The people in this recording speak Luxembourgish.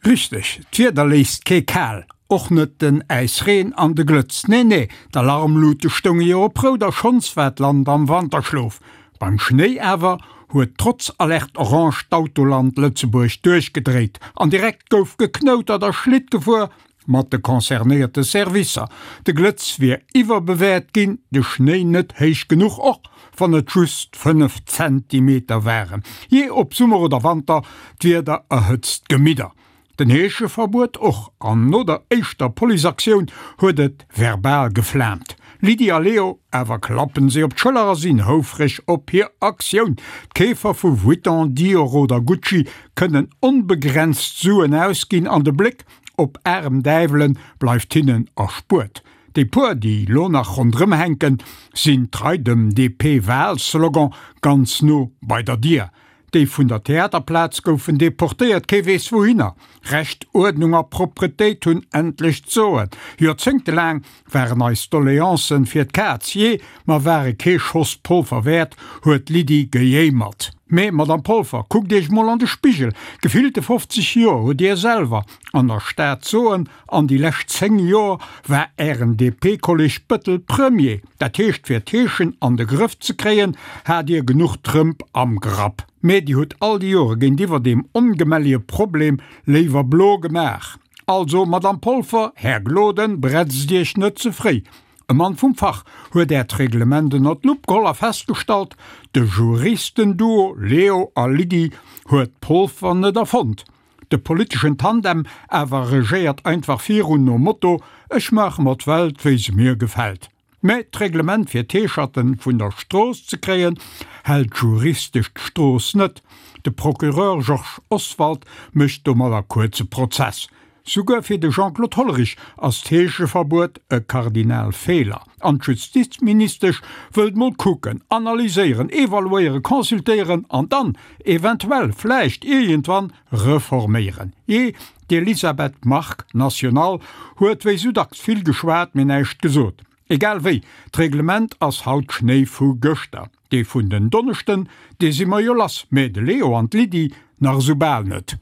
Richteg, d'Wieder léisst kee kal, och net den Äisreen an de Glëtz. Nee, nee, d'Alarmlute stounge jo op rout a schonns war d'Land am Wanterschlof. Beim Schnéi awer huet trotz Alerte orange d'Autoland Lëtzebuerg duerchgedréit an direkt gouf geknoutert a Schlitt gefuer mat de concernéierte Servicer. De Glëtz wier iwwerbewäert ginn, de Schnéi net héich genuch, och wann et just 5 Zentimeter waren. Jee, ob Summer oder Wanter, d'Wieder erhëtzt d'Gemidder. Den Heescheverbuet och, an no der éischter Policeaktioun huet et verbal geflaamt. Lydie a Leo awer klappen si op d'Schëller a sinn houfreg op hir Aktioun. D'Keefer vu Vuitton, Dior oder Gucci kënnen onbegrenzt Suen ausginn an de Bléck op aarem Däiwelen bleift hinnen erspuert. Déi puer, déi lo nach ronderëm hänken, sinn trei dem DP-Wahlslogan ganz no bei der Dier. Déi vun der Theaterplaz goufen deportéiert, kee weess wouhinner. Recht, Uerdnung a Propretéit hunn endlech d'Soen. Joerzéngtelaang waren eis Doleancen fir d'Kaz, jee, mer ware kee Schoss Polfer wäert, huet d'Lydie gejéimert. Mee, Madame Polfer, kuckt Iech mol an de Spigel, gefillte 50 Joer hutt Dir selwer an der Stad d'Soen, an déi lescht 10 Joer war Ären DP-Kolleg Bëttel Premier. Dat heescht, fir d'Heeschen an de Grëff ze kréien, hat Dir genuch Trëmp am Grapp. Mee Dir hutt all déi Jore géintiwwer deem ongemellige Problem léiwer blo gemaach. Also, Madame Polfer, Här Gloden, bretzt Iech net ze fréi. E Mann vum Fach huet Äert Reglement ënner d'Lupp geholl a festgestallt, de Juristenduo Leo a Lydie huet d'Polfer net erfonnt. De politeschen Tandem awer regéiert einfach virun nom Motto, Ech maache mer d'Welt wéi se mir gefält. Mä d'Reglement fir d'Heescherten vun der Strooss ze kréien, hält juristesch d'Strooss net. De Procureur Georges Oswald mécht domadder kuerze Prozess. Souguer fir de Jean-Claude Hollerich ass d'Heescheverbuet e Kardinalfeeler. An d'Justizministesch wëllt mol kucken, analyséieren, evaluéieren, consultéieren an dann eventuell, vläicht iergendwann, reforméieren. Jee, d'Elisabeth Margue, National, huet wéi sou dacks vill geschwat, mee näischt gesot. Egal wéi, d'Reglement ass haut Schnéi vu gëschter. Dee vun den Donneschden, dee si mer jo lass, mee de Leo an d'Lydie nach esou bal net.